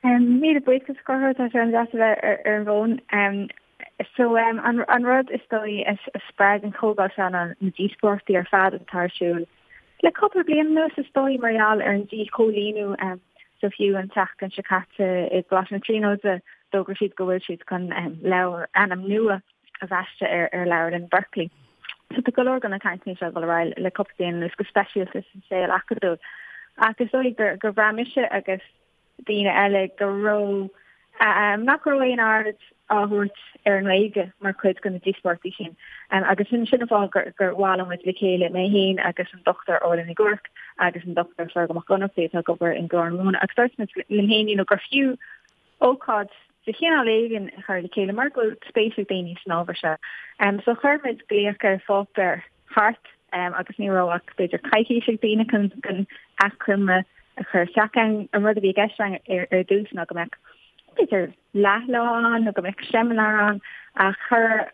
Míle buíochas a Chonchúir, tá sé an-deas a bheith ar an bhfón. So an rud is dóigh a spreag an chomhdháil seo ná na díospóireachtaí ar fad atá ar siúl le cúpla bliain anuas is dóigh mar gheall ar an díchoilíniú. So fiú an tseachtain seo caite i gColáiste na Tríonóide d'fhógair siad go bhfuil siad chun leabhar, ainm nua a bhaisteadh ar ar leabharlann Berkeley. So tá go leor de na cainteanna seo ag dul ar aghaidh le cúpla bliain anuas go speisialta sa saol acadúil. Ach is dóigh gur gur bhraith mise agus daoine eile go raibh nach raibh aon aird á thabhairt ar an nGaeilge mar chuid de na díospóireachtaí sin. Agus sin sin an fáth gur gur bhailigh muid le chéile, mé féin agus an Dr Orla Nic Ruairc agus an Dr Fergal Mac Ionnrachtaigh atá ag obair in Glór na Móna agus dúirt muid linn féin you know, gur fiú ócáid de chineál éigin a chur le chéile mar go bhfuil spéis ag daoine san ábhar seo. So chuir muid glaoch ar pháipéar thart agus ní raibh ach b'fhéidir coicís ag daoine chun chun achoimre a chur isteach ann. An rud a bhí i gceist againn ar ar dtús ná go mbeadh b'fhéidir leathlá ann nó go mbeadh seimineár ann ach chuir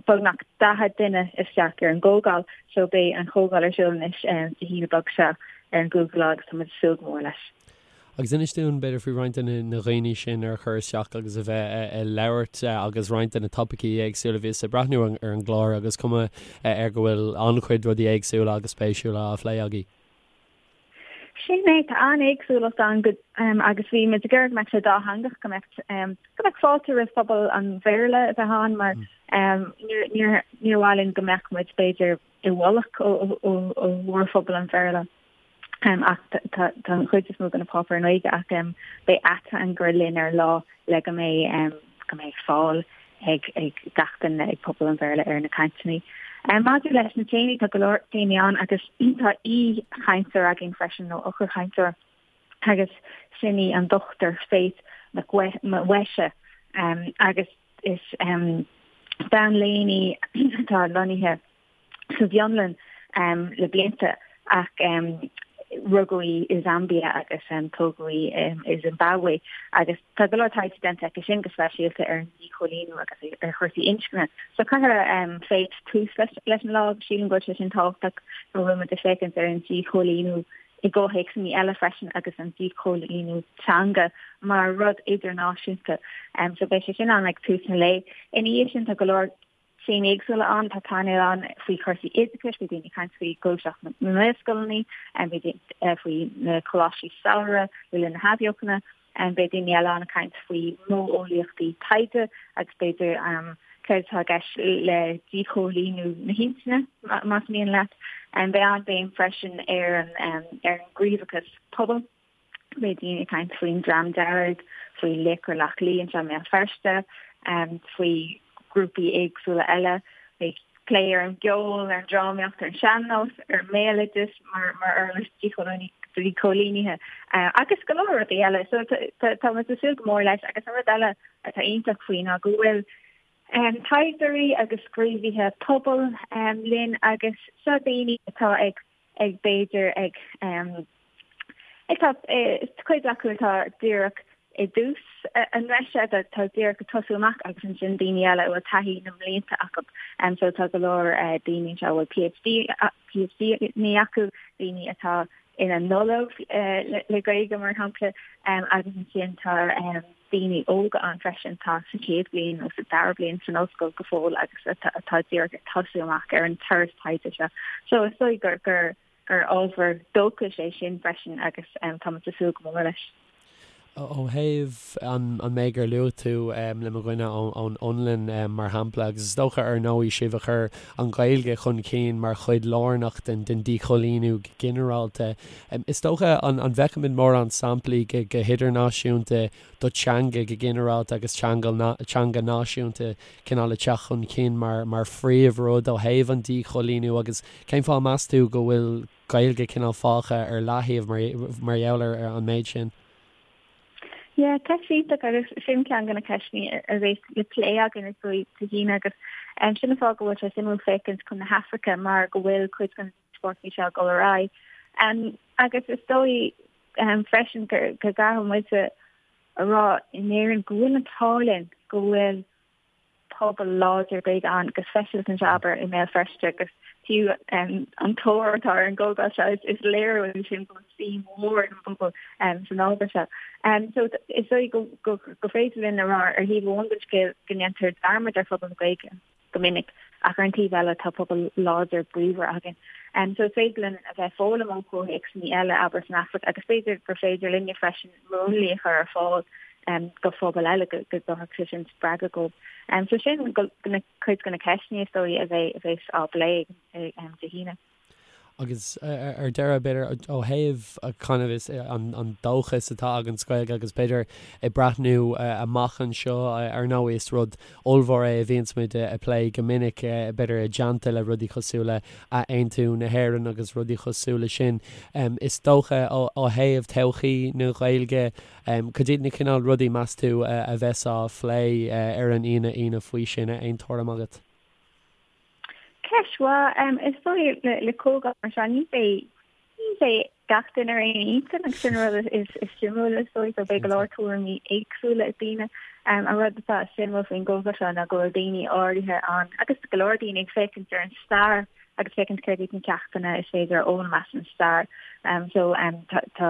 beagnach 40 duine isteach ar an gcomhdháil so beidh an chomhdháil ar siúl anois Dé hAoine beag seo ar an gcúigiú lá agus tá muid ag súil go mór leis. Agus inis dúinn, b'fhéidir, faoi roinnt de na dhaoine sin ar chuir isteach agus a bheith ag labhairt agus roinnt de na topaicí éagsúla. Bhíos ag breathnú ar an gclár agus cuma air go bhfuil an-chuid rudaí éagsúla agus spéisiúla á phlé agaibh. Sin é, tá an-éagsúlacht ann go, agus bhí muid ag iarraidh go mbeadh sé dátheangach, go mbeadh, go mbeadh fáilte roimh phobal an Bhéarla a bheith ann mar níor, níor, níor mhaith linn go mbeadh muid, b'fhéidir, i bhfolach ó, ó, ó mhórphobal an Bhéarla. Ach tá an chuid is mó de na páipéir i nGaeilge ach beidh ateangaire linn ar an lá le go mbeidh go mbeidh fáil ag ag gach duine ag pobal an Bhéarla ar na cainteanna. Maidir leis na téamaí, tá go leor téamaí ann agus tá aoi-chainteoir againn freisin nó eochairchainteoir agus sin í an Dr Faith Mwesha agus is bean léinn í atá lonnaithe sa bhFionlainn le blianta ach rugadh í i Zambia agus tógadh í i Zimbabwe agus tá go leor taighde déanta aici sin go speisialta ar an díchoilíniú agus ar chúrsaí inscne. So cuirfidh Faith tús leis an lá agus sílim go bhfuil sé sin tábhachtach go bhfuil muid ag féachaint ar an díchoilíniú i gcomhthéacsanna eile freisin agus an díchoilíniú teanga mar rud idirnáisiúnta. So beidh sé sin ann ag tús an lae. Ina dhiaidh sin tá go leor téamaí éagsúla ann, tá painéal ann faoi chúrsaí oideachais, beidh daoine ag caint faoi ghluaiseacht na nGaelscoileanna, beidh faoi na coláistí samhraidh le linn na hathbheochana, beidh daoine eile ann ag caint faoi modheolaíochtaí taighde agus b'fhéidir céard atá i gceist le díchoilíniú na hintinne, más mian leat. Beidh an-bhéim freisin ar an ar an ngníomhachas pobail. Beidh daoine ag caint faoin Dream Dearg, faoi Laochra Loch Lao anseo i mBéal Feirste, faoi ghrúpaí éagsúla eile. Beidh plé ar an gceol, ar an drámaíocht, ar an sean-nós, ar an mbéaloideas mar mar uirlis díchoilínithe agus go leor rudaí eile. So tá muid ag súil go mór leis agus an rud eile atá iontach faoi ná go bhfuil taighdeoirí agus gníomhaithe pobail linn agus seo daoine atá ag ag b'fhéidir ag ag tá cuid acu atá díreach i dtús a ndreise atá díreach ag tosú amach agus ansin daoine eile a bhfuil taithí na mblianta acu. So tá go leor daoine anseo a bhfuil PhD PhD acu, daoine atá ina n-ollamh le Gaeilge mar shampla agus ansin tá daoine óga ann freisin atá sa chéad bhliain nó sa dara bliain san ollscoil go fóill agus atá díreach ag tosú amach ar an turas taighde seo. So is dóigh gur gur gur ábhar dóchais é sin freisin agus táimid ag súil go mór leis. Ó thaobh an méid gur luaigh tú le mo dhuine ón Fhionlainn mar shampla, agus is dócha ar ndóigh sibh a chuir an Ghaeilge chun cinn mar chuid lárnach den díchoilíniú go ginearálta, Is dócha, an bhfeicimid mórán samplaí go hidirnáisiúnta do teanga go ginearálta agus teanga náisiúnta cineál ag teacht chun cinn mar phríomhrud ó thaobh an díchoilíniú agus cén fáth meas tú go bhfuil Gaeilge cineál fágtha ar leathaobh mar gheall ar an méid sin? Yeah, ceist iontach agus sin ceann de na ceisteanna a bheas le plé againn is dóigh Dé hAoine agus sin an fáth go bhfuil sé suimiúil féachaint chun na hAfraice mar go bhfuil cuid den díospóireachtaí seo ag dul ar aghaidh. Agus is dóigh freisin go gcaithfidh muid a rá in Éirinn go bhfuil an t-ádh linn go bhfuil pobal láidir Gaeilge ann, go speisialta anseo abair i mBéal Feirste agus Fiú an tóir atá ar an gcomhdháil seo, is léiriú é sin go bhfuil suim mhór ag an bpobal san ábhar seo. So is dóigh go féidir linn a rá ar thaobh amháin den scéal go ndéantar dearmad ar phobal na Gaeilge go minic ach ar an taobh eile tá pobal láidir bríomhar againn. So is féidir linn a bheith ag foghlaim ó chomhthéacsanna eile, abair san Afraic, agus b'fhéidir gur féidir linne freisin múnlaí a chur ar fáil do phobail eile go dtabharfadh sé sin spreagadh dóibh. So sin cuid de na ceisteanna is dóigh a bheas á bplé Dé hAoine. Agus ar deireadh, b'fhéidir, ó thaobh kind of is an dóchas atá againn sa Ghaeilge agus b'fhéidir ag breathnú amach anseo, ar ndóigh is rud ollmhór é a bhíonns muid ag plé go minic, b'fhéidir i dteannta le rudaí cosúil le athaontú na hÉireann agus rudaí cosúil le sin. Is dócha ó thaobh todhchaí na Gaeilge, Cad iad na cineál rudaí, meas tú, a bheas á phlé ar an Aoine Aoine faoi sin? Aon tuairim agat? Ceist mhaith. Is dóigh le comhdháil mar seo ní bheidh ní bheidh gach duine ar aon intinn agus sin an rud is suimiúla is dóigh so beidh go leor tuairimí éagsúla ag daoine. An rud atá suimiúil faoin gcomhdháil seo ná go bhfuil daoine áirithe ann agus go leor daoine ag féachaint ar an stair agus féachaint céard iad na ceachtanna is féidir a fhoghlaim as an stair. So tá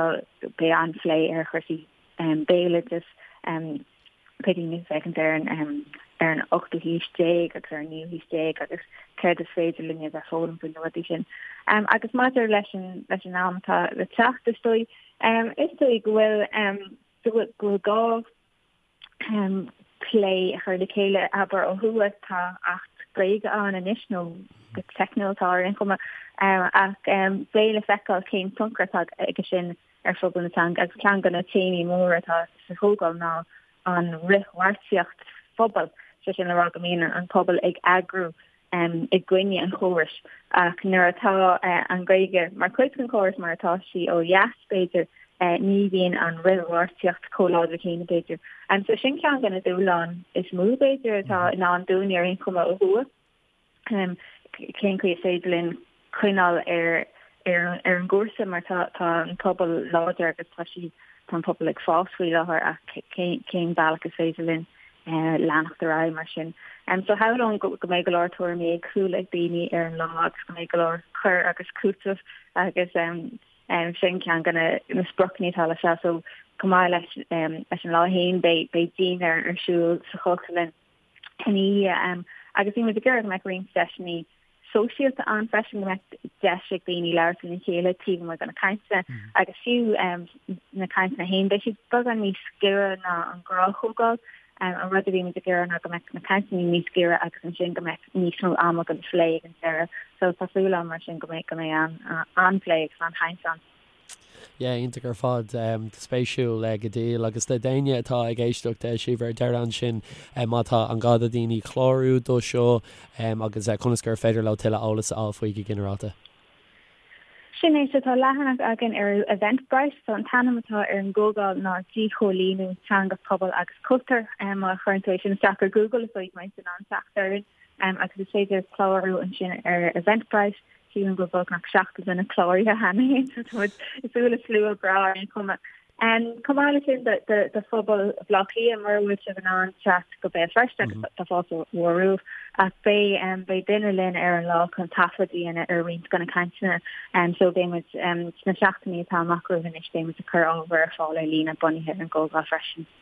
beidh an-phlé ar chúrsaí béaloideas, beidh daoine ag féachaint ar an ar an ochtú haois déag agus ar an naoú haois déag agus céard is féidir linn a bheith ag foghlaim faoi na rudaí sin. Agus maidir leis an leis an am atá le teacht is dóigh is dóigh go bhfuil go bhfuil go bhfuil gá plé a chur le chéile, abair, ó thuaidh. Tá Acht Gaeilge ann anois, nó go teicniúil tá ar aon chuma, ach beidh le feiceáil cén tionchar atá aige sin ar phobal na teanga agus ceann de na téamaí móra atá sa chomhdháil ná an fhrithbheartaíocht phobail, sé sin le rá go mbíonn an pobal ag eagrú i gcoinne an chórais ach nuair atá an Ghaeilge mar chuid den chóras mar atá sí ó dheas, b'fhéidir, ní bhíonn an fhrithbheartaíocht chomh láidir céanna, b'fhéidir. So sin ceann de na dúshláin is mó, b'fhéidir, atá i ndán dúinn ar aon chuma ó thuaidh. Cén chaoi is féidir linn coinneáil ar ar ar an gcúrsa mar tá tá an pobal láidir agus tá sí tá an pobal ag fás faoi láthair ach cén cén bealach is féidir linn leanacht ar aghaidh mar sin. So shamhlóinn go go mbeidh go leor tuairimí éagsúla ag daoine ar an lá agus go mbeidh go leor cur agus cúiteamh agus sin ceann de na na spriocanna atá leis seo. So chomh maith leis leis an lá féin beidh beidh dinnéar ar siúl sa Chultúrlann ina dhiaidh agus bhí muid ag iarraidh go mbeadh roinnt deiseanna sóisialta ann freisin, go mbeadh deis ag daoine labhairt lena chéile taobh amuigh de na cainteanna agus fiú na cainteanna féin, beidh siad beagán níos giorra ná an ghnáthchomhdháil. An rud a bhí muid ag iarraidh ná go mbeadh na cainteanna níos giorra agus ansin go mbeadh níos mó ama don phlé ag an deireadh. So tá súil agam mar sin go mbeidh go mbeidh an-phlé agus an-chaint ann. Yeah, iontach ar fad. Spéisiúil go diail. Agus do d'éinne atá ag éisteacht, Síobhra, ar deireadh ansin, má tá an gá do dhaoine clárú do seo agus conas gur féidir leo tuilleadh eolas a fháil faoi go ginearálta. Sin é, so tá leathanach againn ar Eventbrite, so an t-ainm atá ar an gcomhdháil ná Díchoilíniú Teanga, Pobal agus Cultúr. Má chuireann tú é sin isteach ar Google is dóigh go mbeidh tú in ann teacht orainn agus is féidir clárú ansin ar Eventbrite. Sílim go bhfuil beagnach 70 duine cláraithe cheana féin, so tá muid ag súil le slua breá ar aon chuma. Chomh maith leis sin do phobal Bhaile Átha Cliath, mura bhfuil sibh in ann teacht go Béal Feirste, agus tá fáilte mhór romhaibh, ach beidh beidh duine linn ar an lá chun taifead a dhéanamh ar roinnt de na cainteanna. So beidh muid sna seachtainí atá amach romhainn anois, beidh muid ag cur ábhar ar fáil ar líne bunaithe ar an gcomhdháil freisin.